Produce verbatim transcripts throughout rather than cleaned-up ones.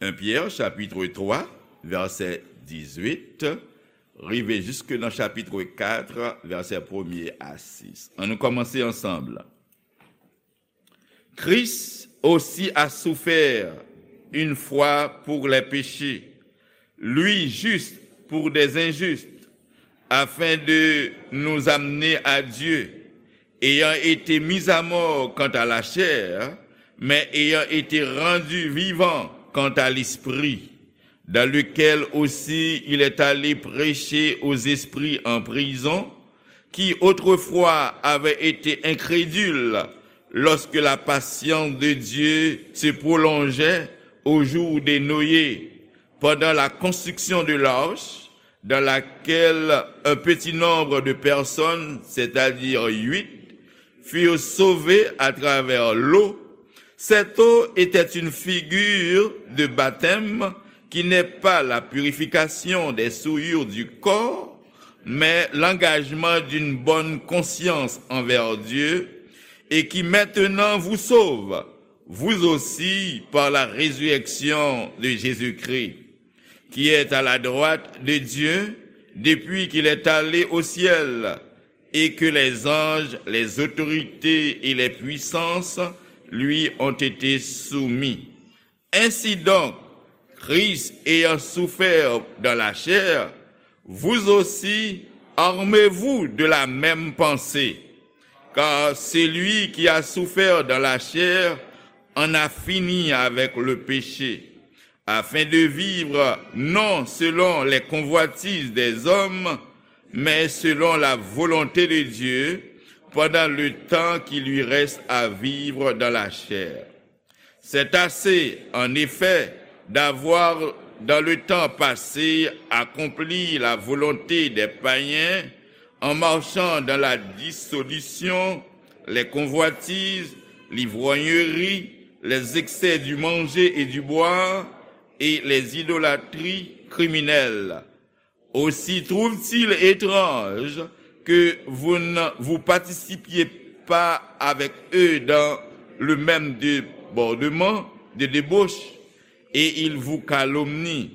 En Pyè, chapit twa, vèsè dizuit, rive jiske nan chapit kat, vèsè premye a sis. Ann nou kòmanse ansanm. Christ aussi a souffert une fois pour les péchés, lui juste pour des injustes, afin de nous amener à Dieu, ayant été mis à mort quant à la chair, mais ayant été rendu vivant quant à l'esprit, dans lequel aussi il est allé prêcher aux esprits en prison, qui autrefois avaient été incrédules lorsque la patience de Dieu se prolongeait au jour de Noé, pendant la construction de l'arche, dans laquelle un petit nombre de personnes, c'est-à-dire huit, furent sauvées à travers l'eau. Cette eau était une figure de baptême qui n'est pas la purification des souillures du corps, mais l'engagement d'une bonne conscience envers Dieu, et qui maintenant vous sauve, vous aussi, par la résurrection de Jésus-Christ, qui est à la droite de Dieu depuis qu'il est allé au ciel, et que les anges, les autorités et les puissances lui ont été soumis. Ainsi donc, Christ ayant souffert dans la chair, vous aussi, armez-vous de la même pensée, car celui qui a souffert dans la chair en a fini avec le péché, afin de vivre non selon les convoitises des hommes, mais selon la volonté de Dieu, pendant le temps qui lui reste à vivre dans la chair. C'est assez, en effet, d'avoir, dans le temps passé, accompli la volonté des païens, en marchant dans la dissolution, les convoitises, l'ivrognerie, les excès du manger et du boire, et les idolâtries criminelles. Aussi trouve-t-il étrange que vous ne vous participiez pas avec eux dans le même débordement de débauche, et ils vous calomnient.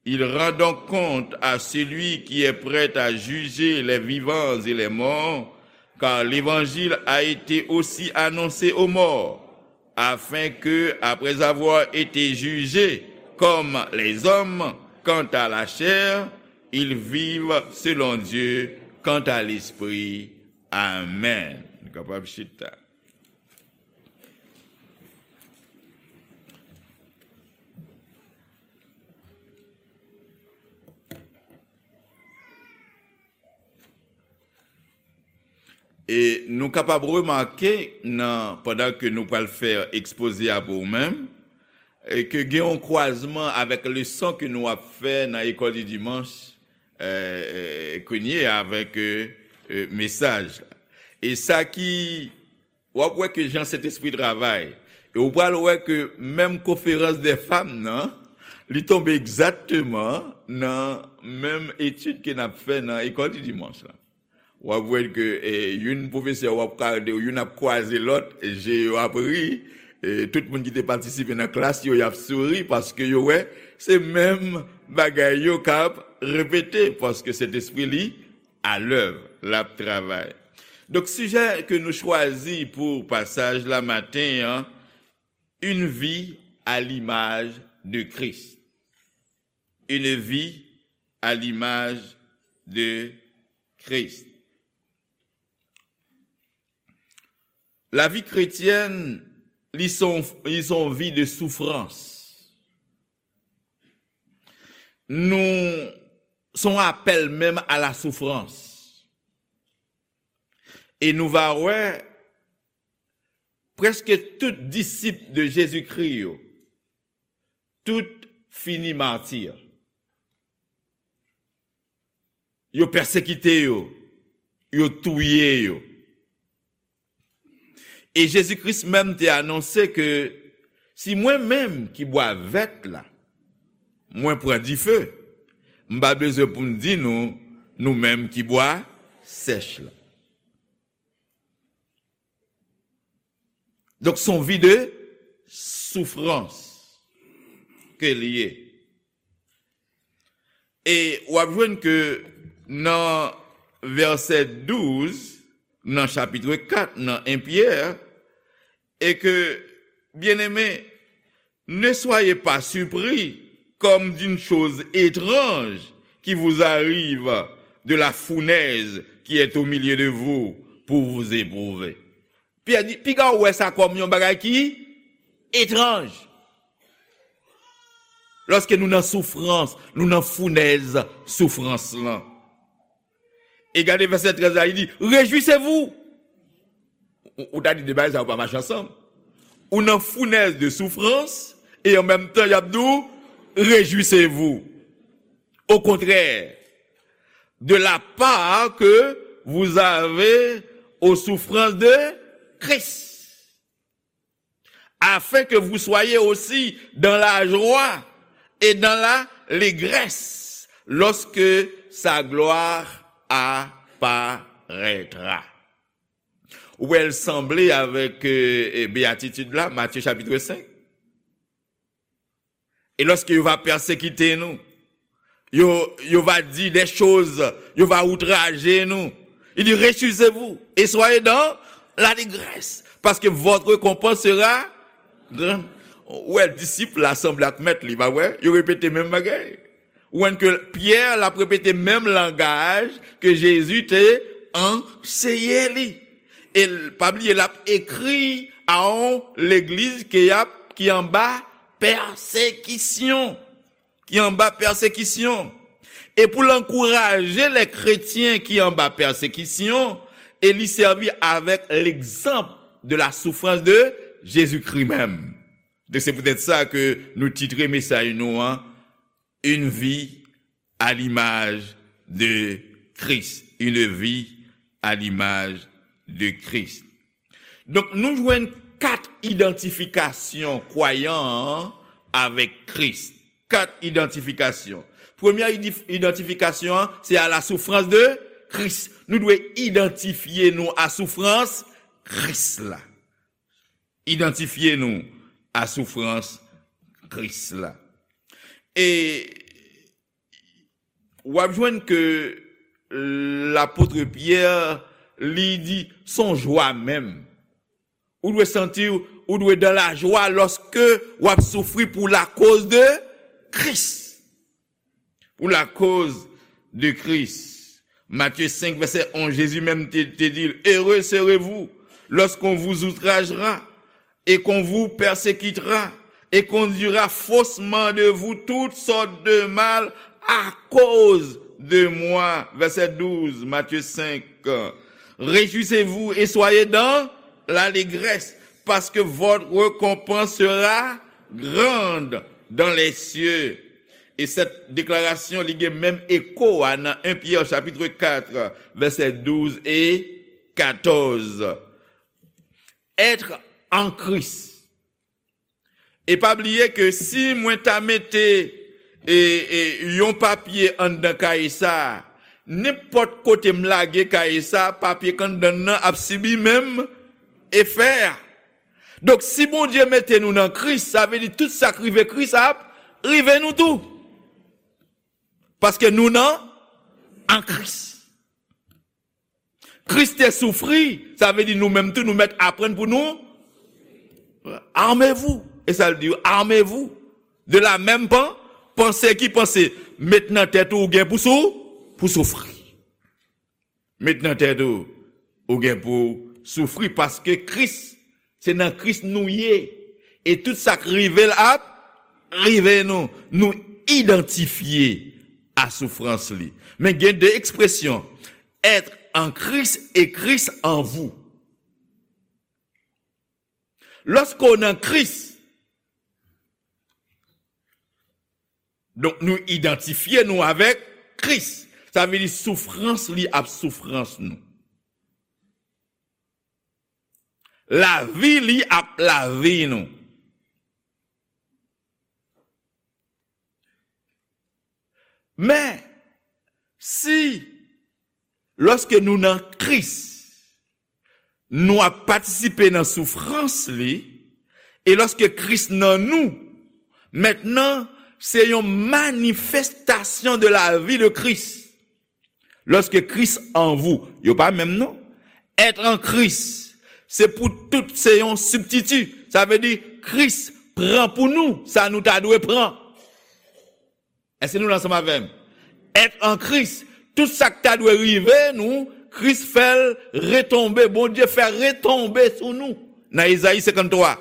Il rend donc compte à celui qui est prêt à juger les vivants et les morts, car l'évangile a été aussi annoncé aux morts, afin que, après avoir été jugés comme les hommes quant à la chair, ils vivent selon Dieu quant à l'esprit. Amen. Nou kapab chita. E nou kapab remake nan, pandan ke nou pral fè ekspoze a pou ou menm, e ke gen yon kwazman avèk leson ke nou ap fè nan École du Dimanche, e, e, kounye a avèk, e, e, mesaj la. E sa ki, w ap wè ke jan Sentespri travay. E ou pral wè ke menm konferans dè fanm nan, li tonbe egzakteman nan menm etid ke n ap fè nan École du Dimanche la. W ap wè ke, e, youn pwofesè w ap gade, youn ap kwaze lòt, je yo ap ri, e, tout moun ki te patisipe nan klas yo, y ap souri paske yo wè se menm bagay yo k ap repete, paske Sentespri li alèv, l ap travay. Donk, sijè ke nou chwazi pou pasaj la maten an, une vie à l'image de Christ. Une vie à l'image de Christ. Lavi kretyèn, li se yon, li se yon vi de soufrans. Nou, se yon apèl menm a la soufrans. E nou va wè, prèske tout disip de Jezikri yo, tout fini mati. Yo pèsekite yo, yo touye yo. E Jezi Kris menm te anonse ke si mwen menm ki bwa vèt la, mwen pran dife, m pa bezwen pou m di nou, nou menm ki bwa sèch la. Donk, se yon vi de soufrans. ke l ye. E w ap jwenn ke nan vèsè douz, nan chapit kat, nan en Pyè, e ke, byeneme, ne soyez pas surpris comme d'une chose étrange qui vous arrive de la fournaise qui est au milieu de vous pour vous éprouver. Pyè di, piga w wè sa kòm yon bagay ki etranj. Lòske nou nan soufrans, nou nan founèz soufrans lan. E gade vèsè trèz la, li di, réjouissez-vous. Ou, ou ta di de bagay sa yo pa mache ansanm. Ou nan founèz de soufrans, e an menm tan, y ap di w, réjouissez-vous. Au contraire, de la part que vous avez aux souffrances de Christ, afin que vous soyez aussi dans la joie et dans la légresse lorsque sa gloire apparaîtra. Ou wè l sanble avèk, euh, euh, beyatitid la, Matye chapit senk. Et lorsque yo va persécuter nous, yo, yo va dire des choses, yo va outrager nous. Il dit, réjouissez-vous et soyez dans l'allégresse, parce que votre récompense sera grande. Ou wè, disip la sanble ak mèt li, pa vre? Yo repete menm bagay. Ou wè ke Pyè l ap repete menm langaj ke Jezi te anseye li. E l, pa bliye, l ap ekri a yon legliz ke y ap, ki anba pèsekisyon. Ki anba pèsekisyon. E pou l ankouraje lè kretyen ki anba pèsekisyon, e li sèvi avèk l'exemple de la souffrance de Jésus-Christ menm. Donk, se poutèt sa ke nou titre mesaj nou an, Une vie à l'image de Christ. Une vie à l'image de Christ. Donk, nou jwenn kat idantifikasyon kwayan an avèk Kris. Kat idantifikasyon. Premyè idif-, idantifikasyon an, se à la souffrance de Christ. Nou dwe idantifye nou a soufrans Kris la. Idantifye nou a soufrans Kris la. E w ap jwenn ke lapot Pyè, li di, se yon jwa menm. Ou dwe santi w, ou dwe dans la joie lorsque w ap soufri pour la cause de Christ. Pour la cause de Christ. Matthieu cinq, verset onze, Jésus même te, te dit, heureux serez-vous lorsqu'on vous outragera et qu'on vous persécutera et qu'on dira faussement de vous toutes sortes de mal à cause de moi. Verset douze, Matthieu cinq. Réjouissez-vous et soyez dans l'allégresse, parce que votre récompense sera grande dans les cieux. E sèt deklarasyon, li gen menm eko a nan en Pyè chapit kat, vèsè douz e katòz. Être en Christ. E pa bliye ke si mwen ta mete, e, e, yon papye anndan kaye sa a, nenpòt kote m lage kaye sa a, papye k anndan l nan ap sibi menm efè a. Donk, si Bondye mete nou nan Kris, sa vle di tout sa k rive Kris ap rive nou tou. Paske nou nan, an Kris. Kris te soufri, sa vle di nou menm tou, nou mèt aprann pou nou, armez-vous. E sa l di, armez-vous. De la même pen-, pensée, ki panse? Met nan tèt ou, ou gen pou sou-, pou soufri. Met nan tèt ou, ou gen pou soufri, paske Kris, se nan Kris nou ye. E tout sa k rive l ap rive nou. Nou idantifye a soufrans li. Men gen de ekspresyon, être en Christ et Christ en vous. Lòske w nan Kris, donk nou idantifye nou avèk Kris. Sa vle di soufrans li ap soufrans nou. Lavi li ap lavi nou. Men, si, lòske nou nan Kris, nou ap patisipe nan soufrans li, e lòske Kris nan nou, Mentnan, se yon manifestasyon de la vi de Kris. Lorsque Christ en vous, yo pa menm non. Être en Christ, se pou tout, se yon sibstiti. Sa vle di, Kris pran pou nou sa nou ta dwe pran. Èske nou la ansanm avè m? Être en Christ, tout sa k ta dwe rive nou, Kris fè l retonbe. Bondye fè retonbe sou nou. Nan Ezayi senkanntwa.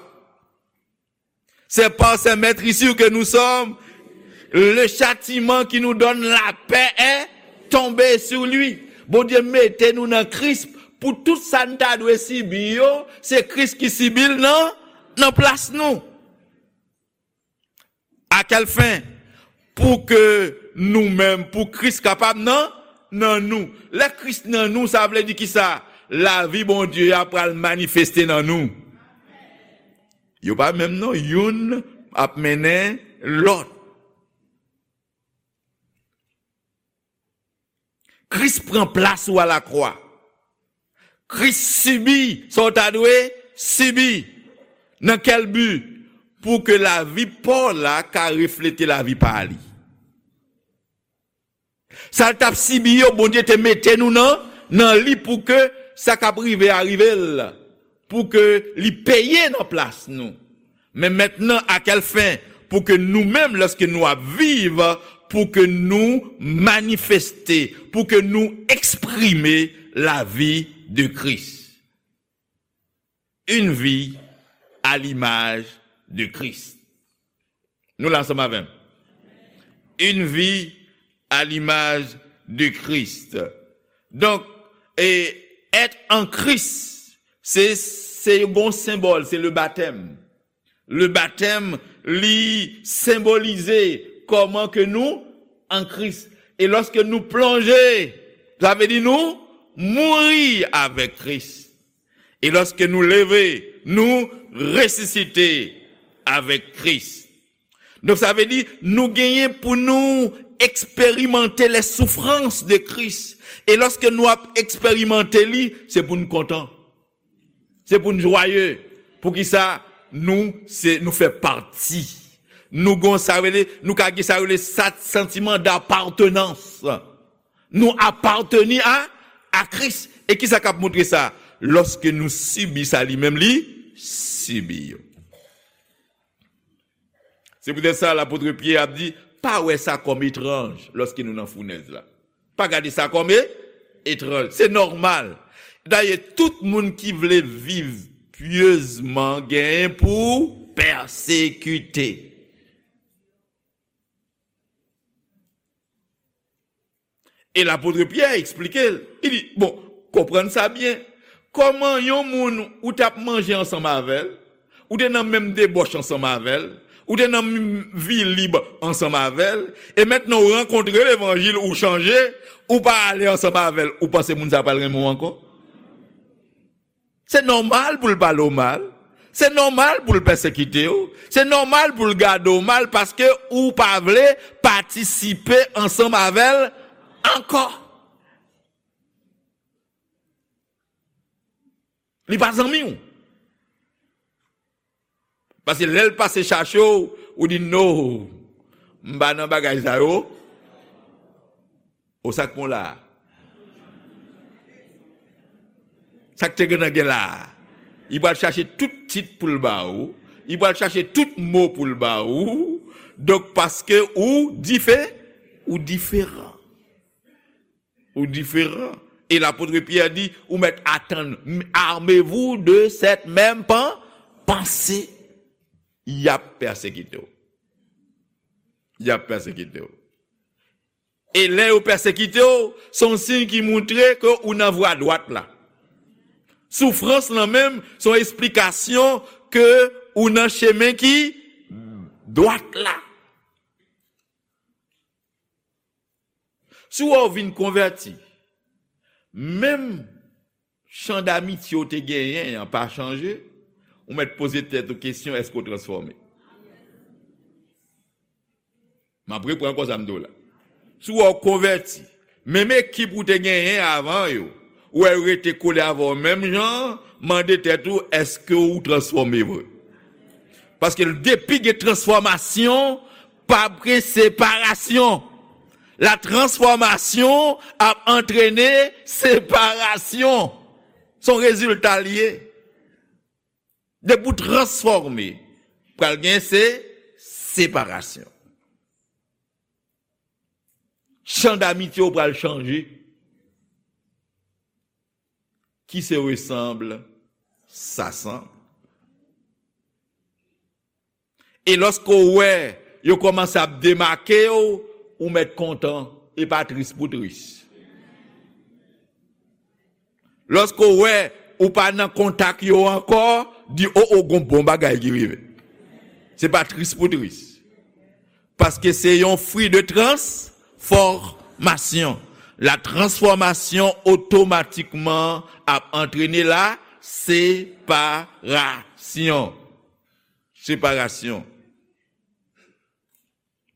C'est par ses meurtrissures que nous sommes. Le châtiment qui nous donne la paix est tombé sur lui. Bondye mete nou nan Kris pou tout sa n ta dwe sibi yo, se Kris ki sibi l nan, nan plas nou. À quelle fin? Pou ke nou menm, pou Kris kapab nan, nan nou. Lè Kris nan nou, sa vle di kisa? Lavi Bondye a pral manifeste nan nou. Yo pa menm non, youn ap mennen lòt. Kris pran plas ou alakwa. Kris sibi sa w ta dwe sibi. Nan kèl bi? Pou ke lavi pa w la ka reflete lavi pa li. Sa l t ap sibi yo, Bondye te mete nou nan, nan li pou ke sa k ap rive a rive l, pou ke li peye nan plas nou. Men mentnan, à quelle fin? Pou ke nou menm, lòske nou ap viv, pou ke nou manifeste, pou ke nou eksprime lavi de Kris. Une vie à l'image de Christ. Nou la ansanm avè m. Une vie à l'image de Christ. Donk, e, être en Christ, se, se yon senbòl, se le baptême. Le baptême, li senbolize kòman ke nou an Kris. E lòske nou plonje, sa vle di nou mouri avèk Kris. E lòske nou leve, nou resisite avèk Kris. Donk, sa vle di, nou genyen pou nou eksperimante les souffrances de Christ. E lòske nou ap eksperimante li, se pou n kontan. Se pou n jwaye. Poukisa? Nou, se, nou fè pati. Nou gon sa rele, nou ka gen sa rele sa, santiman d'apartenance. Nou apateni a, a Kris. E kisa k ap montre sa? Lòske nou sibi sa li menm li sibi yo. Se poutèt sa, lapot Pyè ap di, pa wè sa kòm etranj lòske nou nan founèz la. Pa gade sa kòm e, etranj. Se nòmal. Dayè, tout moun ki vle viv pyezman genyen pou pèsekite. E lapot Pyè eksplike l. Li di, bon, konprann sa byen. Kòman yon moun ou t ap manje ansanm avè l, ou te nan menm debòch ansanm avè l, ou te nan menm vi lib ansanm avè l, e mentnan ou rankontre levanjil, ou chanje, ou pa ale ansanm avè l, ou panse moun sa pral renmen w ankò? Se nòmal pou l pale w mal. Se nòmal pou l pèsekite w. Se nòmal pou l gade w mal paske ou pa vle patisipe ansanm avè l ankò. Li pa zanmi w. Paske lè l pase chache w, ou di, "No, m pa nan bagay sa yo." O, sa k pon la a? Sa k te gentan gen la a? Li pral chache tout tit pou l ba ou. Li pral chache tout mo pou l ba ou. Donk, paske ou dife-, ou diferan. Ou diferan. E lapot Pyè di, ou mèt atann, armez-vous de cette même pen-, pensée. Y ap pèsekite w. Y ap pèsekite w. E lè yo pèsekite w, se yon siy ki montre ke ou nan vwa dwat la. Soufrans lan menm, se yon esplikasyon ke ou nan chemen ki dwat la. Si w wè w vin konvèti, menm chan damitye w te genyen an pa chanje, ou mèt poze tèt ou kesyon, èske w transfòme? M ap reprann ankò sa m di w la. Si w wè w konvèti, menm ekip ou te genyen avan yo, ou wè yo rete kole avè w menm jan, mande tèt ou, èske w transfòme vre? Paske depi gen transfòmasyon, p ap gen separasyon. La transformation ap antrene separasyon. Se yon rezilta l ye. Depi w transfòme, pral gen se separasyon. Chan damitye w pral chanje. Qui se ressemble s'assemble. E lòske w wè yo kòmanse ap demake w, ou mèt kontan, e pa tris pou tris. Lòske w wè ou pa nan kontak yo ankò, di, o, o, gon bon bagay ki rive. Se pa tris pou tris. Paske se yon fwi de transfòmasyon. La transformation automatiquement ap antrene la separasyon. Separasyon.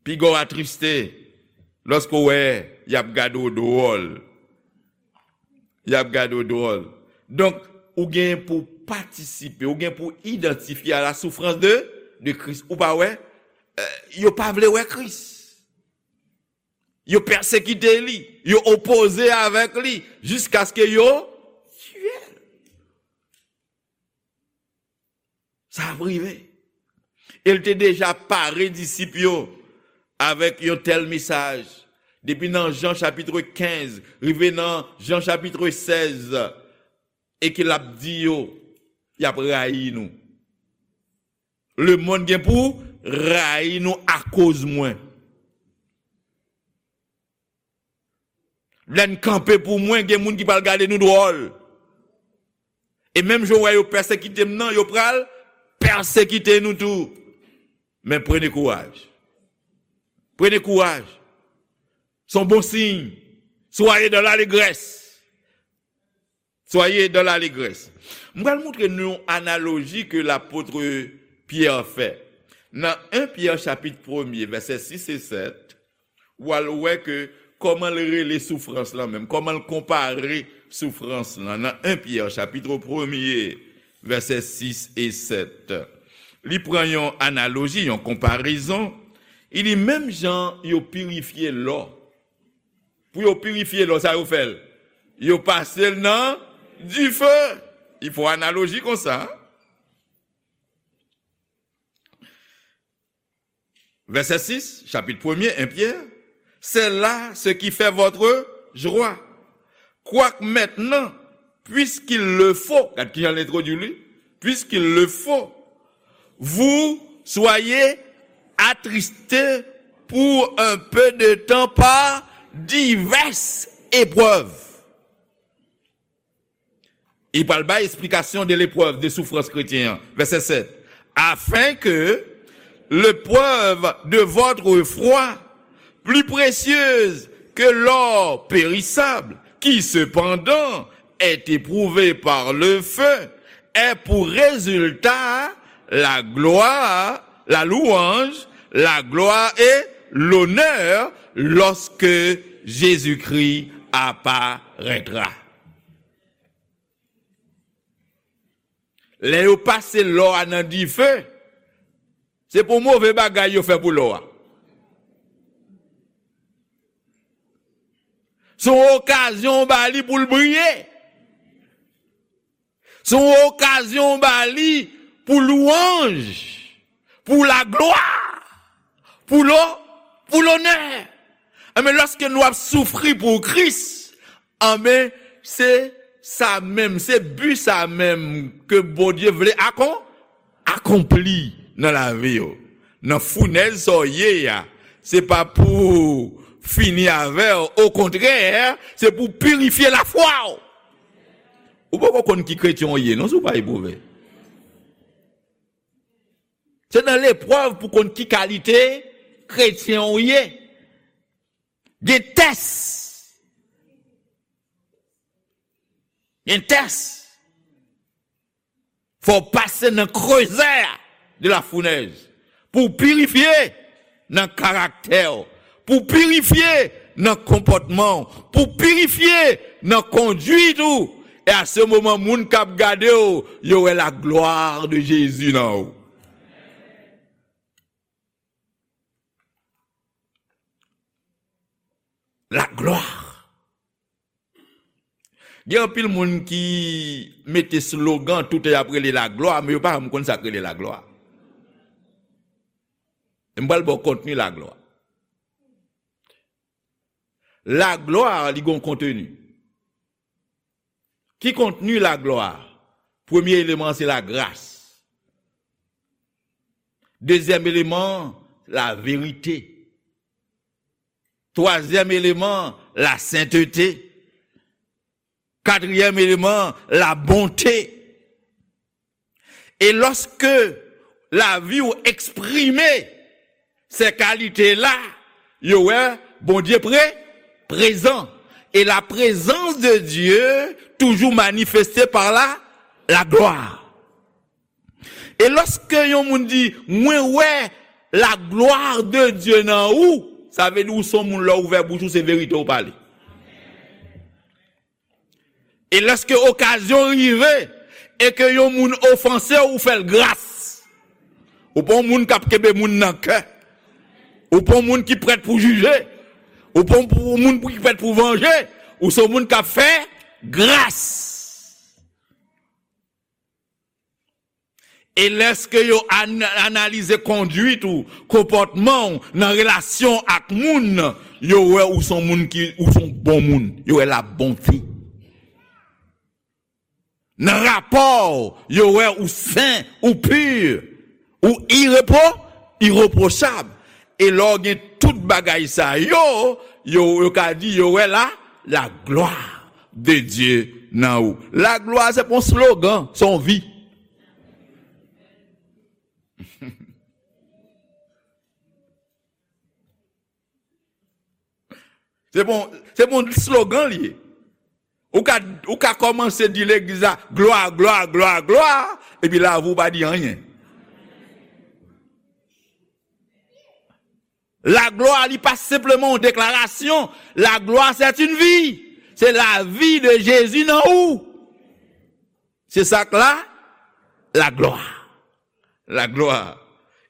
Piga w atriste lòske w wè y ap gade w dwòl. Y ap gade w dwòl. Donk, ou gen pou patisipe, ou gen pou idantifye a la soufrans de, de Kris. Ou pa wè? Eh, yo pa vle wè Kris. Yo pèsekite li. Yo opoze avèk li. Jiskaske yo tiye l. Sa ap rive. E l te deja pare disip yo avèk yon tèl mesaj. Depi nan Jan chapit kenz, rive nan Jan chapit sèz, e ke l ap di yo, y ap rayi nou. Lemonn gen pou rayi nou akoz mwen. Lè n kanpe pou mwen, gen moun ki pral gade nou dwòl. E menm jan w wè yo pèsekite m nan, yo pral pèsekite nou tou. Men prenez courage. Prenez courage. Se yon bon siy. Soyez dans l'allégresse. Soyez dans l'allégresse. M pral montre nou yon analoji ke lapot Pyè fè. Nan en Pyè chapit premye, vèsè sis e sèt, w al wè ke kòman l rele soufrans lan menm, kòman l konpare soufrans lan. Nan en Pyè chapit premye, vèsè sis e sèt, li pran yon analoji, yon konparezon. Li di, menm jan yo pirifye lò. Pou yo pirifye lò, sa yo fè l? Yo pase l nan dife. Li fè analoji konsa. Vèsè sis, chapit premye, en Pyè, c'est là ce qui fait votre joie. Quoique maintenant, puisqu'il le faut, gad kijan l entwodui li, puisqu'il le faut, vous soyez attristés pour un peu de temps par diverses épreuves. Li pral bay esplikasyon de leprèv, de soufrans kretyen an. Vèsè sèt. Afin que l'épreuve de votre foi, plus précieuse que l'or périssable, qui cependant est éprouvé par le feu, ait pour résultat la gloire, la louange, la gloire et l'honneur lorsque Jésus-Christ apparaîtra. Lè yo pase lò a nan dife, se pou move bagay yo fè pou lò a. Se yon okazyon ba li pou l briye. Se yon okazyon ba li pou lwanj, pou laglwa, pou lo-, pou lonè. Enben, lòske nou ap soufri pou Kris, enben, se sa menm, se bi sa menm ke Bondye vle akon-, akonpli nan lavi w. Nan founèz sa w ye a, se pa pou fini avè w, okontrè, se pou pirifye lafwa w. Ou poko konn ki kretyen w ye, non, si w pa epwouve. Se nan leprèv pou konn ki kalite kretyen w ye. Gen tès. Gen tès. Fò w pase nan krezè de la founèz pou w pirifye nan karaktè w, pou w pirifye nan konpòtman w, pou w pirifye nan konduit ou. E a se moman, moun k ap gade w, yo wè la gloire de Jésus nan ou. Gen anpil moun ki mete slogan, tout y ap rele laglwa, men yo pa janm konn sa k rele laglwa. M pral ba w kontni laglwa. Laglwa, li gen yon kontni. Ki kontni laglwa? Premye eleman, se lagras. Dezyèm eleman, laverite. Twazyèm eleman, lasentete. Katriyèm eleman, labonte. E lòske lavi w eksprime se kalite la, yo wè Bondye pre, prezan. E la prezans de Dye toujou manifeste pa la, laglwa. E lòske yon moun di, "Mwen wè la gloire de Dieu nan ou," sa vle di ou se yon moun lè w ouvè bouch ou se verite w pale. E lèske okazyon rive e ke yon moun ofanse w, ou fè l gras. Ou pa yon moun k ap kenbe moun nan kè. Ou pa yon moun ki prèt pou jije. Ou pa yon moun ki prèt pou vanje. Ou se yon moun k ap fè gras. E lèske yo an-, analize kondwit ou, konpòtman w nan relasyon ak moun, yo wè ou se yon moun ki, ou se yon bon moun. Yo wè labonte. Nan rapò w, yo wè ou sen, ou pi, ou irepwo-, irepwochab. E lè w gen tout bagay sa yo, yo, yo ka di yo wè la, la gloire de Dieu nan ou. Laglwa se pa yon slogan, se yon vi. Se bon, se bon slogan li ye. Ou ka, ou ka kòmanse di legliz la, glwa, glwa, glwa, glwa, epi lavi w pa di anyen. Laglwa, li pa senpleman yon deklarasyon. Laglwa, c'est une vie. Se lavi de Jezi nan ou. Se sa k la, laglwa. Laglwa.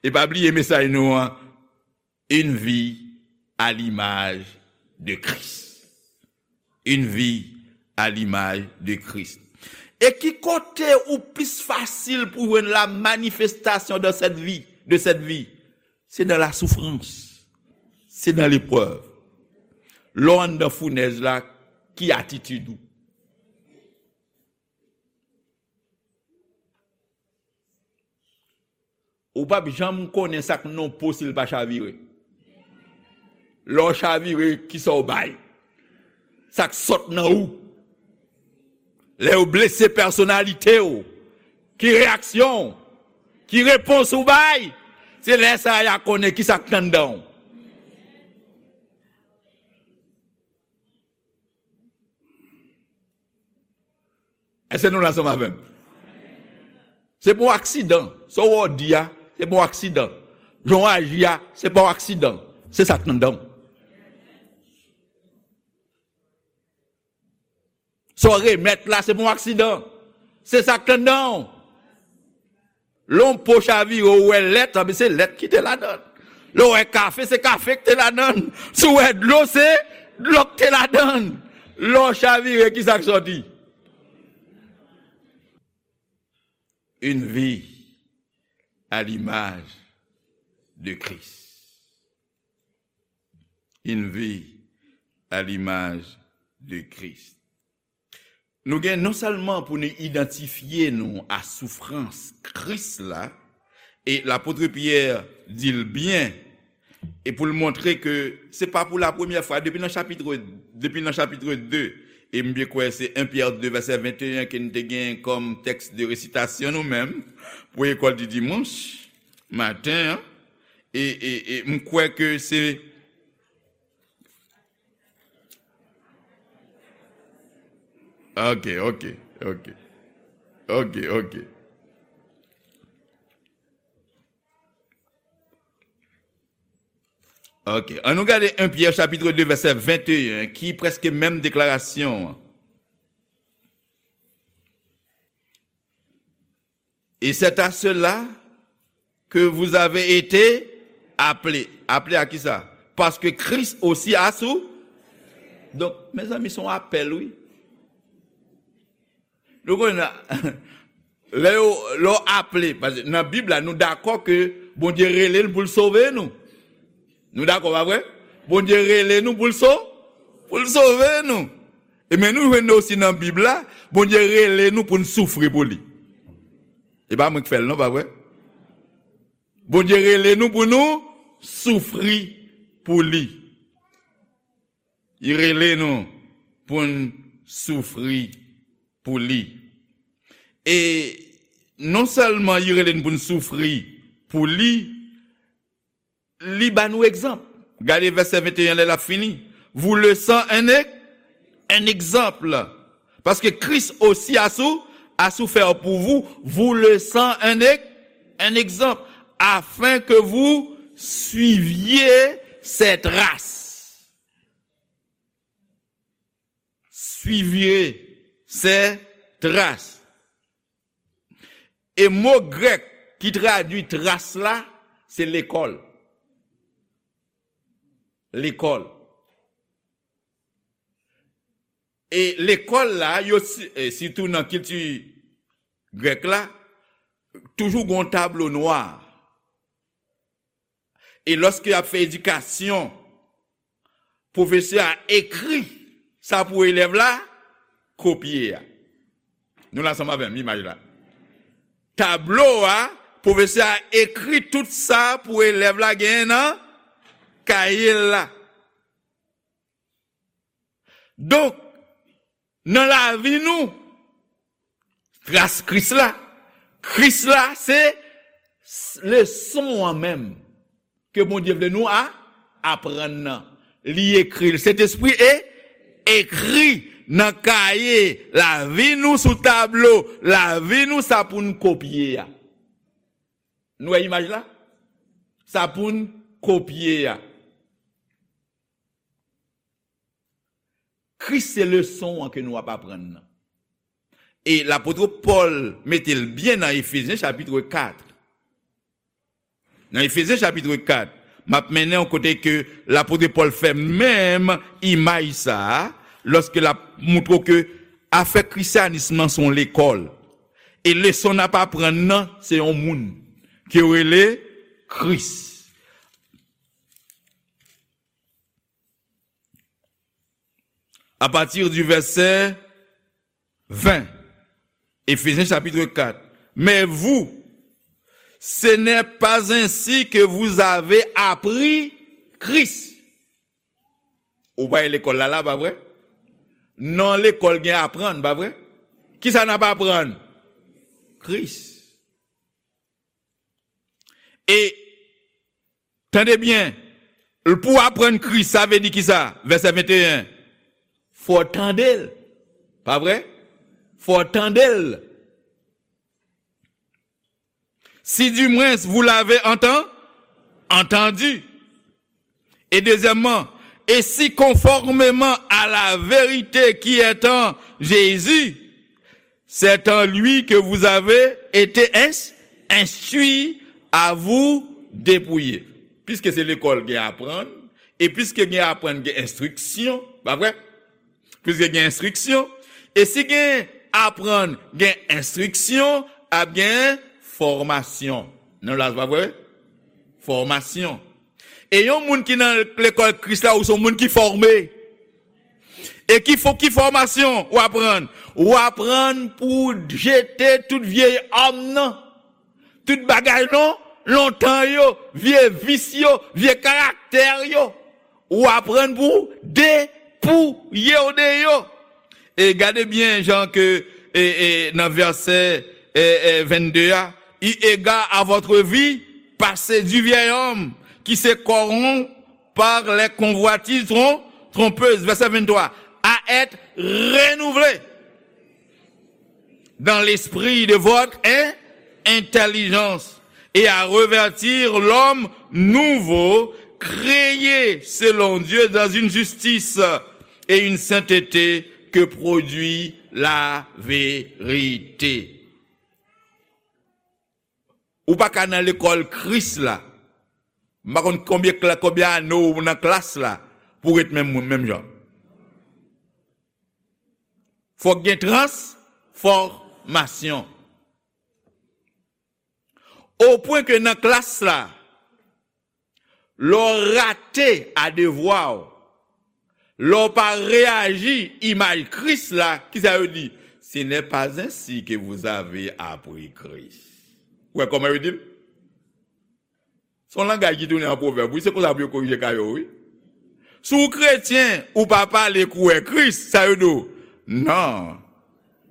E pa bliye mesaj nou an, une vie à l'image de Christ. Une vie à l'image de Christ. E ki kote ou plis fasil pou jwenn la manifestation de cette vie, de cette vie? Se nan la souffrance. Se nan leprèv. Lè w anndan founèz la, ki atitid ou? Ou p ap janm konnen sa k nan po si l pa chavire. Lè w chavire, kisa w bay? Sa k sot nan ou? Lè yo blese pèsonalite w, ki reyaksyon w? Ki repons ou bay? Se lè sa a y a konnen kisa k t anndan w. Èske nou la ansanm avè m? Se pa yon aksidan. Sa w wè w di a, se pa yon aksidan. Jan w aji a, se pa yon aksidan. Se sa k anndan w. Sa w remèt la, se pa yon aksidan. Se sa k anndan w. Lè yon po chavire, ou wè lèt, anben se lèt ki te ladan l. Lè w wè kafe, se kafe ki te ladan l. Si w wè dlo, se dlo ki te ladan l. Lè w chavire, kisa k sòti? Une vie à l'image de Christ. Une vie à l'image de Christ. Nou gen non sèlman pou nou idantifye nou a soufrans Kris la, e lapot Pyè di l byen, e pou l montre ke se pa pou la premyè fwa, depi nan chapit, depi nan chapit de, e m byen kwè se en Pyè de vèsè venteyen ke n te gen kòm tèks de resitasyon nou menm, pou lekòl di dimanch maten an, e, e, e m kwè ke se Ok, ok, ok. Ok, ok. Ok, ann nou gade en Pyè chapit de vèsè venteyen, ki prèske menm deklarasyon an. Et c'est à cela que vous avez été appelés. Aple a kisa? Paske Kris osi a sou. Donk, mezanmi, se yon apèl, wi. Nou konnen, lè yo, lè w aple, paske nan Bib la, nou dakò ke Bondye rele n pou l sove nou. Nou dakò, pa vre? Bondye rele nou pou l so-, pou l sove nou. E men nou jwenn osi nan Bib la, Bondye rele nou pou n soufri pou li. E pa mwen ki fè l non, pa vre? Bondye rele nou pou nou soufri pou li. Li rele nou pou n soufri pou li. E non sèlman li rele n pou n soufri pou li, li ba nou egzanp. Gade vèsè venteyen lè l ap fini. Vous laissant un, e-, un exemple. Parce que Christ aussi a sou-, a souffert pour vous, vous laissant un, e-, un exemple, afin que vous suiviez ses traces. Suiviez ses traces. E mo grèk ki tradui tras la, se lekòl. Lekòl. E lekòl la, yo si-, e sitou nan kilti grèk la, toujou gen yon tablo nwa. E lòske y ap fè edikasyon, pwofesè a ekri sa pou elèv la kopye a. Nou la ansanm avè m, imaj la. Tablo a, pwofesè a ekri tout sa pou elèv la genyen nan kaye l la. Donk, nan lavi nou, tras Kris la, Kris la se s-, leson an menm ke Bondye vle nou a-, aprann nan. Li ekri l. Sentespri e ekri nan kaye lavi nou, sou tablo lavi nou, sa pou n kopye a. Nou wè imaj la? Sa pou n kopye a. Kris se leson an ke nou ap aprann nan. E lapot Pòl mete l byen nan Efezyen chapit kat. Nan Efezyen chapit kat, m ap mennen w kote ke lapot Pòl fè menm imaj sa a, lòske l ap montre w ke afè krisyanism nan se yon lekòl. E leson n ap aprann nan, se yon moun ke yo rele Kris. À partir du verset vingt, Éphésiens chapitre quatre. Mais vous, ce n'est pas ainsi que vous avez appris Christ. Ou pa lekòl la, la, pa vre? Non, lekòl gen aprann, pa vre? Kisa n ap aprann? Kris. E, tande byen, pou w aprann Kris, sa vle di kisa? Vèsè venteyen. Fò w tande l. Pa vre? Fò w tande l. Si du moins vous l'avez enten-, entendu. Et deuxièmement, et si conformément à la vérité qui est en Jésus, c'est en lui que vous avez été ins-, instruits à vous dépouiller. Piske se lekòl gen aprann, e piske gen aprann gen enstriksyon, pa vre? Piske gen enstriksyon, e si gen aprann gen enstriksyon, ap gen fòmasyon. Non, la, pa vre? Fòmasyon. E yon moun ki nan lekòl Kris la, ou se yon moun ki fòme. E ki fò-, ki fòmasyon w aprann? W aprann pou w jete tout vye òm nan. Tout bagay non, lontan yo, vye vis yo, vye karaktè yo. Ou aprann pou w depouye w de yo. E gade byen jan ke, e, e, nan vèsè, e, e, vennde a, eu égard à votre vie passée du vieil homme qui se corrompt par les convoitises trom-, trompeuses. Verset vingt-trois. À être renouvelé dans l'esprit de votre in-, intelligence et à revêtir l'homme nouveau, créé selon Dieu dans une justice et une sainteté que produit la vérité. Ou pa ka nan lekòl Kris la. M pa konn konbyen kla-, konbyen ane w nan klas la pou w ret menm moun, menm jan. Fòk gen trans-, fòmasyon. Opwen ke nan klas la, lè w rate a devwa w, lè w pa reyaji imaj Kris la, kisa yo di? Ce n'est pas ainsi que vous avez appris Christ. Ou wè kòman yo di l? Se yon langaj ki tounen an pwovèb, wi, se konsa pou yo korije ka yo, wi. Si w kretyen, ou pa pale kou wè Kris, sa yo di w? Non.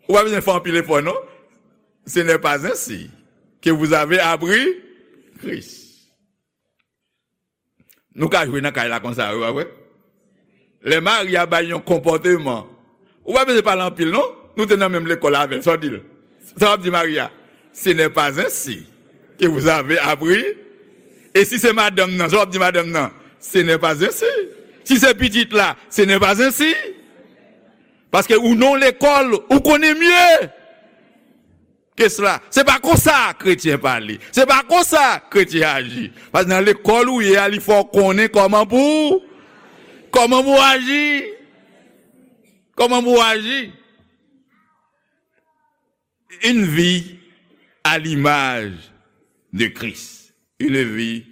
Ou pa bezwen fè anpil efò, non. Ce n'est pas ainsi que vous avez appris Christ. Nou ka jwe nan kay la konsa, wi, pa vre? Lè Maria bay yon konpòteman, ou pa bezwen pale anpil, non? Nou te nan menm lekòl avè l, sa w di l? Sa w ap di Maria? Ce n'est pas ainsi que vous avez appris. E si se madanm nan, sa w ap di madanm nan? Ce n'est pas ainsi. Si se pitit la, ce n'est pas ainsi. Paske ou nan lekòl, ou konnen mye ke sela. Se pa konsa kretyen pale. Se pa konsa kretyen aji. Paske nan lekòl ou ye a, li fè w konnen kòman pou, kòman pou aji. Kòman pou aji. Une vie à l'image de Christ. Une vie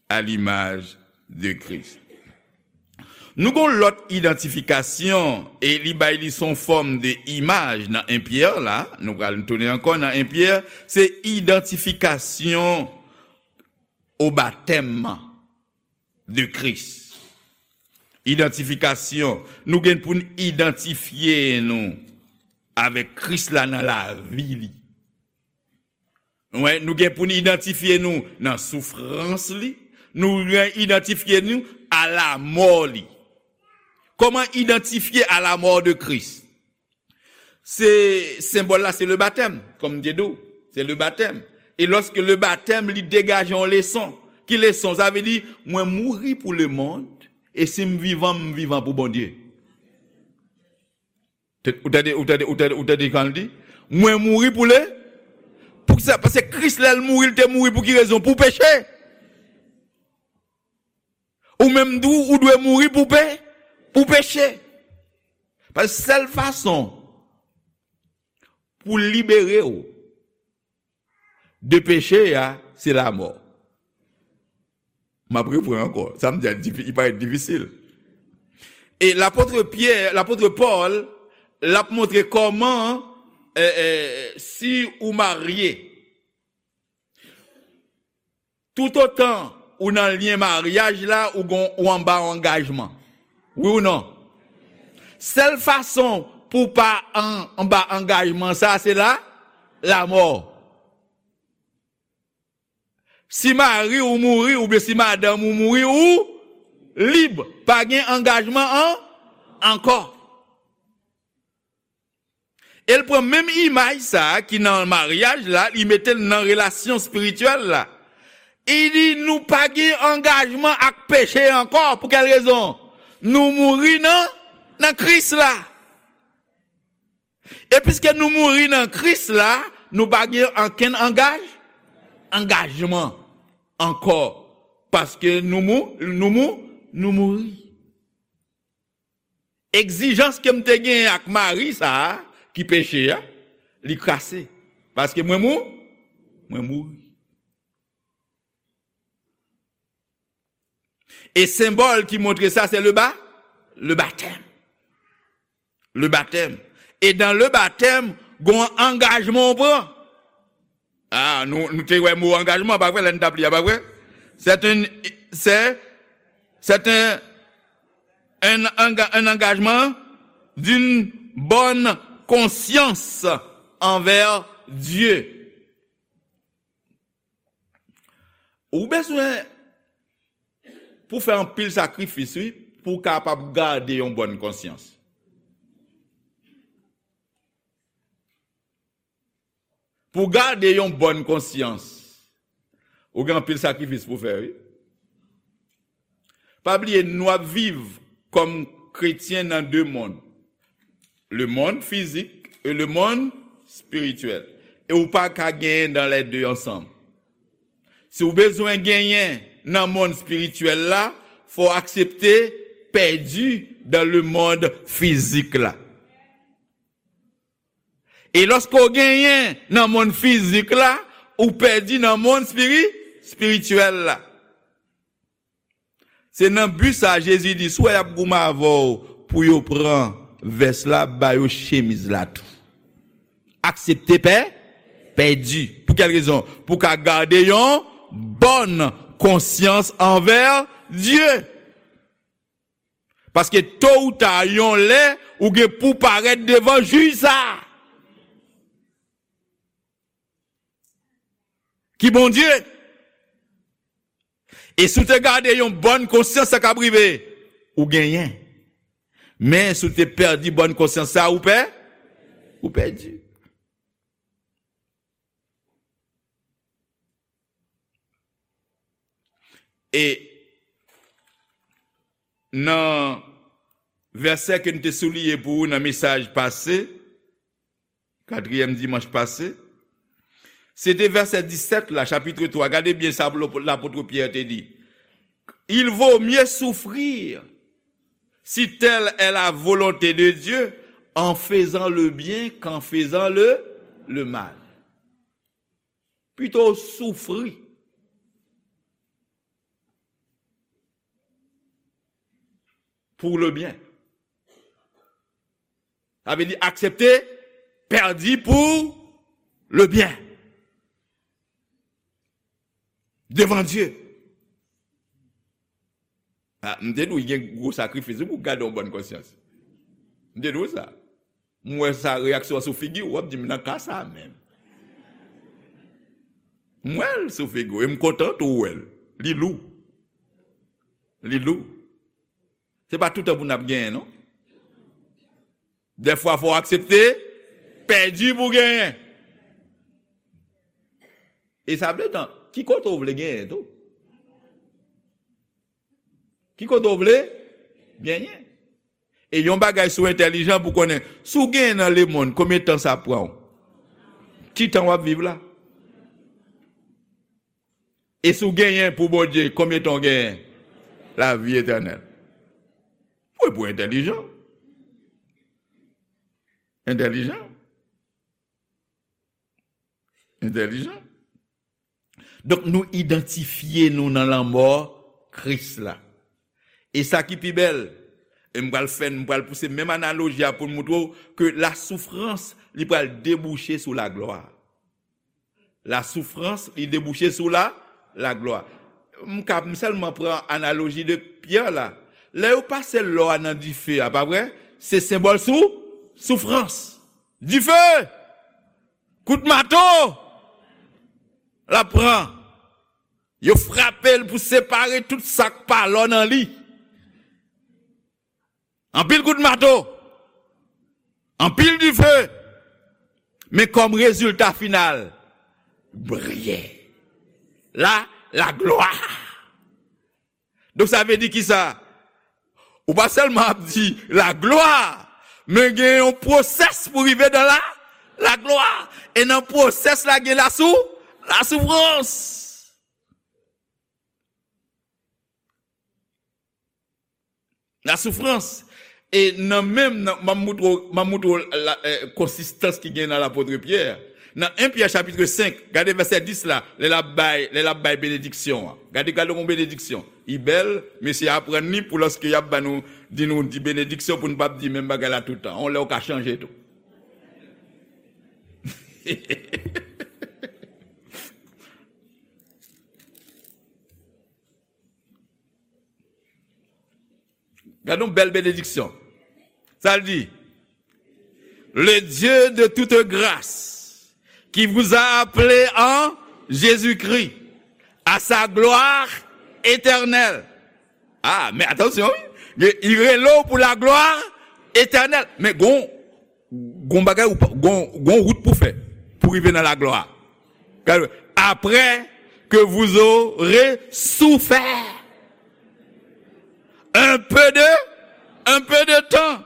à l'image de Christ. Nou gon lòt idantifikasyon, e li bay li son fòm de imaj nan en Pyè la, nou pral tounen ankò nan en Pyè, se idantifikasyon o batèm de Kris. Idantifikasyon, nou gen pou n idantifye nou avèk Kris la nan lavi li. Wè, nou gen pou n idantifye nou nan soufrans li, nou gen idantifye nou a lamò li. Kòman idantifye a lamò de Kris? Se senbòl la, se le batèm, kòm m te di w, se le batèm. E lòske le batèm, li degaje yon leson. Ki leson? Sa vle di, mwen mouri pou le mond, e si m vivan, m vivan pou Bondye. Te- Ou tande, ou tande, ou tande, ou tande kan l di? Mwen mouri pou le. Poukisa? Paske Kris, lè l mouri, l te mouri pou ki rezon? Pou peche. Ou menm tou, ou dwe mouri pou pe, pou peche. Paske sèl fason pou libere w de peche a, se lamò. M ap reprann ankò. Sa m di a, difi- li parèt difisil. E lapot Pyè, lapot Pòl, l ap montre kòman, eh, eh, si ou marye, toutotan ou nan lyen maryaj la, ou gon, ou anba yon angajman. Wi ou non? Sèl fason pou w pa an, anba angajman sa, se la, lamò. Si mari ou mouri, oubyen si madanm ou mouri, ou lib. Pa gen angajman an, ankò. E l pran menm imaj sa a ki nan maryaj la, li mete l nan relasyon espirityèl la. Li di nou pa gen angajman ak peche ankò. Pou kèl rezon? Nou mouri nan, nan Kris la. E piske nou mouri nan Kris la, nou pa gen ankenn angaj, angajman ankò. Paske nou mou, nou mou, nou mouri. Egzijans ke m te genyen ak mari sa a, ki peche a, li kase. Paske mwen mou, mwen mouri. E senbòl ki montre sa, se le ba, le batèm. Le batèm. E dan le batèm, gon angajman w pran. Ah, nou, nou te wè mo angajman, pa vre, lè n t ap li a, pa vre? C'est un, c'est, c'est un, un, enga- un engagement d'une bonne conscience envers Dieu. Ou bezwen pou fè anpil sakrifis, wi, pou w kapab gade yon bòn konsyans. Pou w gade yon bòn konsyans, ou gen anpil sakrifis pou w fè, wi. Pa bliye, nou ap viv kòm kretyen nan de mond. Le monde physique et le monde spirituel. E ou pa ka genyen dans les deux ensemble. Si w bezwen genyen nan mond espirityèl la, fò w aksepte pèdi dans le monde physique la. E lòske w genyen nan monn fizik la, ou pèdi nan monn espiri-, espirityèl la. Se nan bi sa a Jezi di, si w wè y ap goumen avè w pou yo pran vès la, ba yo chemiz la tou. Aksepte pè-, pèdi. Pou kèl rezon? Pou w ka gade yon bòn konsyans anvè Dye. Paske to ou ta, yon lè, ou gen pou parèt devan jij sa a. Ki Bondye. E si w te gade yon bòn konsyans, sa k ap rive? Ou genyen. Men si w te pèdi bòn konsyans sa, ou pè-, ou pèdi. E nan vèsè ke n te souliye pou ou nan mesaj pase, katriyèm dimanch pase, se te vèsè disèt la, chapit twa. Gade byen sa lapot Pyè te di. Il vaut mieux souffrir, si telle est la volonté de Dieu, en faisant le bien qu'en faisant le, le mal. Pito w soufri pour le bien. Sa vle di aksepte pèdi pou le bien. Devan Dye. Ah, m te di w, gen gwo sakrifis wi pou w gade yon bòn konsyans. M te di w sa. M wè sa, reyaksyon an sou figi w, w ap di m nan ka sa menm. M wè l sou figi w, e m kontan tou w wè l. Li lou. Li lou. Se pa toutan pou n ap genyen, non. Dèfwa, fò w aksepte pèdi pou genyen. E sa vle di, ki kote w vle genyen tou? Ki kote w vle genyen? E yon bagay sou entèlijan pou konnen, si w genyen nan lemonn, konbyen tan sa pran w? Ki tan w ap viv la? E si w genyen pou Bondye, konbyen tan w genyen? Lavi etènèl. Wi, pou entèlijan. Entèlijan. Entèlijan. Donk, nou idantifye nou nan lanmò Kris la. E sa ki pi bèl, e m pral fè, m pral pouse menm analoji a pou m moutre w ke lasoufrans, li pral debouche sou laglwa. Lasoufrans, li debouche sou la, laglwa. M ka, m sèlman pran analoji de Pyè la. Lè yo pase lò a nan dife a, pa vre? Se senbòl sou, soufrans. Dife! Kout mato! L ap pran. Yo frape l pou separe tout sa k pa lò nan li. Anpil kout mato. Anpil dife. Men kòm rezilta final, briye. La, laglwa. Donk, sa vle di kisa? Ou pa sèlman ap di laglwa, men gen yon pwosès pou rive nan la, laglwa. E nan pwosès la, gen lasou-, lasoufrans. Lasoufrans. E nan menm, nan, m ap moutre w, m ap moutre w la, eh, konsistans ki gen nan lapot Pyè. Nan en Pyè chapit senk, gade vèsè dis la, lè l ap bay, lè l ap bay benediksyon an. Gade, gade yon benediksyon. Li bèl, mesye aprann li pou lòske y ap ba nou, di nou di benediksyon pou n p ap di menm bagay la tout tan. Yon lè w ka chanje tou. Gade yon bèl benediksyon. Sa l di, le Dieu de toute grâce, qui vous a appelés en Jésus-Christ à sa gloire éternelle. Ah, men atansyon, wi. Li rele w pou laglwa etènèl. Men gon, gon bagay, ou pa, gon, gon wout pou fè, pou rive nan laglwa. Après que vous aurez souffert un peu de, un peu de temps,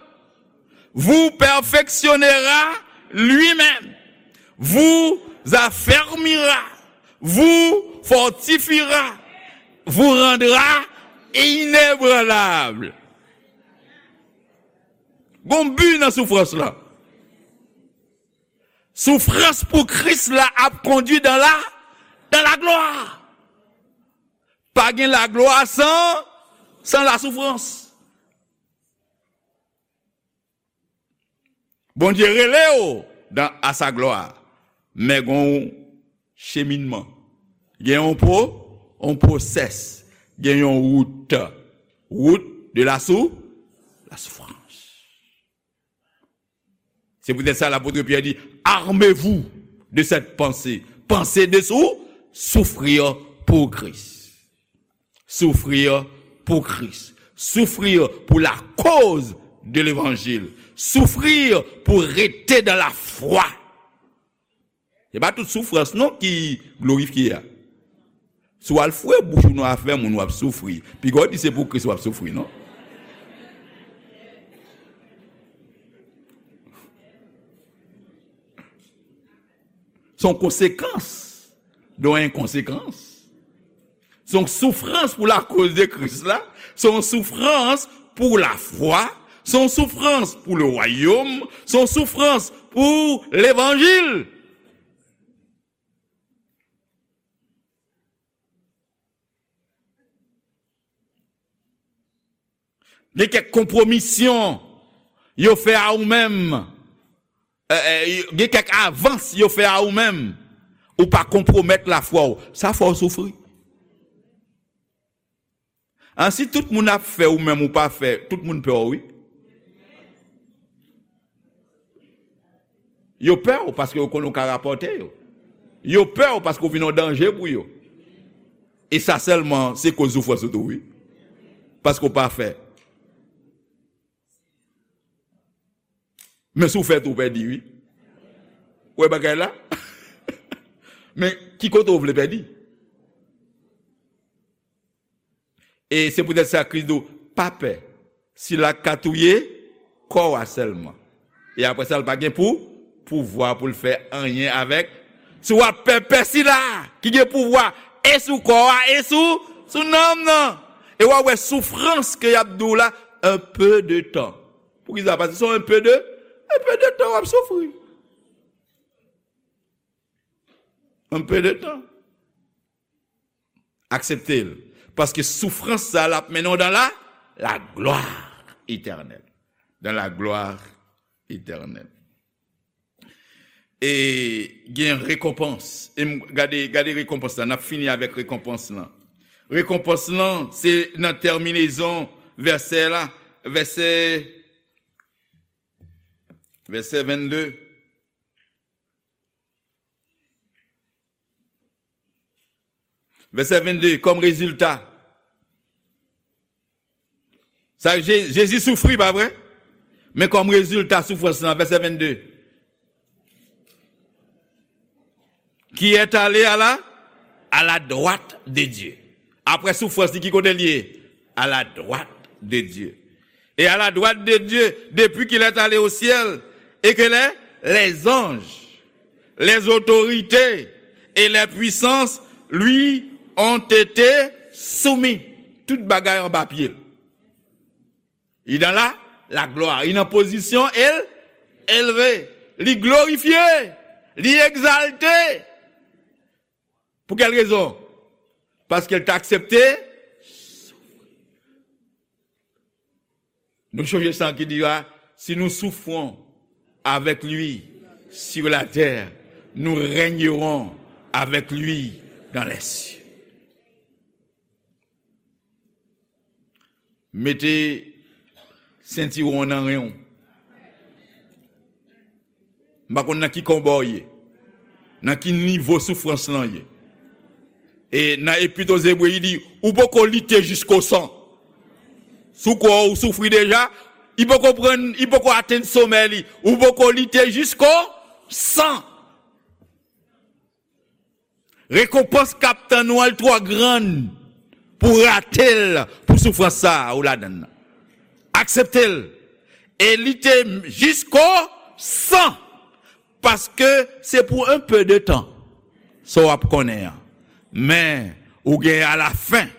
vous perfectionnera lui-même, vous affermira, vous fortifiera, vous rendra inébranlable. Gon bi nan soufrans lan. Soufrans pou Kris la ap kondui dans la, dans la gloire. Pa gen laglwa san, san lasoufrans. Bondye rele w dans, à sa gloire. Men gen yon cheminman. Gen yon pro, yon process. Gen yon wout. Wout de la sou, la souffrance. C'est peut-être ça l'apôtre Pierre dit, armez-vous de cette pensée. Pensez de sou, souffrir pour Christ. Souffrir pour Christ. Souffrir pour la cause de l'évangile. Souffrir pour rester dans la foi. Se pa tout soufrans non ki glorifye a. Si w al foure bouch ou nan afè moun, w ap soufri. Piga w di se pou Kris w ap soufri, non? Se yon konsekans de yon enkonsekans. Se yon soufrans pou lakoz de Kris la. Se yon soufrans pou lafwa. Se yon soufrans pou le wayòm. Se yon soufrans pou levanjil. Gen kèk konpwomisyon yo fè a ou menm. Eh, eh, gen kèk avans yo fè a ou menm. Ou pa konpwomèt lafwa w. Sa fè w soufri. An, si tout moun ap fè, ou menm ou pa fè, tout moun pè w, wi. Yo pè w paske yo konnen w ka rapòte yo. Yo pè w paske w vin yon danje pou yo. E sa sèlman, se koz soufrans ou tou, wi. Paske w pa fè. Men si w fè tou, w pèdi, wi. Ou wè bagay la? Men ki kote w vle pèdi? E se poutèt sa Kris di w, pa pè. Sila k ka touye kò w a sèlman. E apre sa, l pa gen pou, pouvwa pou l fè anyen avèk. Si w ap pè, pè sila ki gen pouvwa e sou kò w a, e sou, sou nanm nan. E w ap wè soufrans ke y ap di w la, un peu de temps. Poukisa? Paske se yon peu de, un peu de temps w ap soufri. Un peu de temps. Aksepte l. Paske soufrans sa l ap mennen w dans la, la gloire éternelle. Dans la gloire éternelle. E gen rekonpans. E m, gade, gade rekonpans la. N ap fini avèk rekonpans lan. Rekonpans lan, se nan tèminezon vèsè la, vèsè, vèsè vennde. Vèsè vennde, kòm rezilta. Sa, Je-, Jezi soufri, pa vre? Men kòm rezilta soufrans lan, vèsè vennde. Qui est allé à la, à la droite de Dieu. Apre soufrans li, ki kote l ye? À la droite de Dieu. Et à la droite de Dieu, depuis qu'il est allé au ciel, et que les, les anges, les autorités et les puissances lui ont été soumis. Tout bagay anba pye l. Li dans la, la gloire. Li nan pozisyon el, elve. Li glorifye. Li egzalte. Pou kèl rezon? Paske l te aksepte. Nou sonje sa ki di a, si nous souffrons avec lui sur la terre, nous régnerons avec lui dans les cieux. Mete sentiwon w nan ren w. M pa konn nan ki konba w ye, nan ki nivo soufrans lan ye. E nan Epit o Zebre, li di, ou poko lite jisko san. Si w kwè w soufri deja, li poko pran, li poko atenn somè li. Ou poko lite jisko san. Rekonpans k ap tann ou an, l twò grann pou w rate l pou soufrans sa a ou ladan l nan. Aksepte l. E lite jisko san, paske se pou un peu de temps, sa w ap konnen an. Men, ou gen alafen,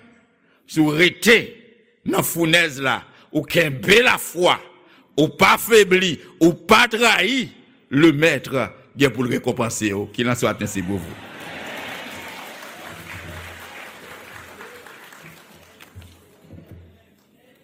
si w rete nan founèz la, ou kenbe lafwa, ou pa febli, ou pa trayi, le Maître gen pou l rekonpanse w. Kilans ou, Atnès Libreville.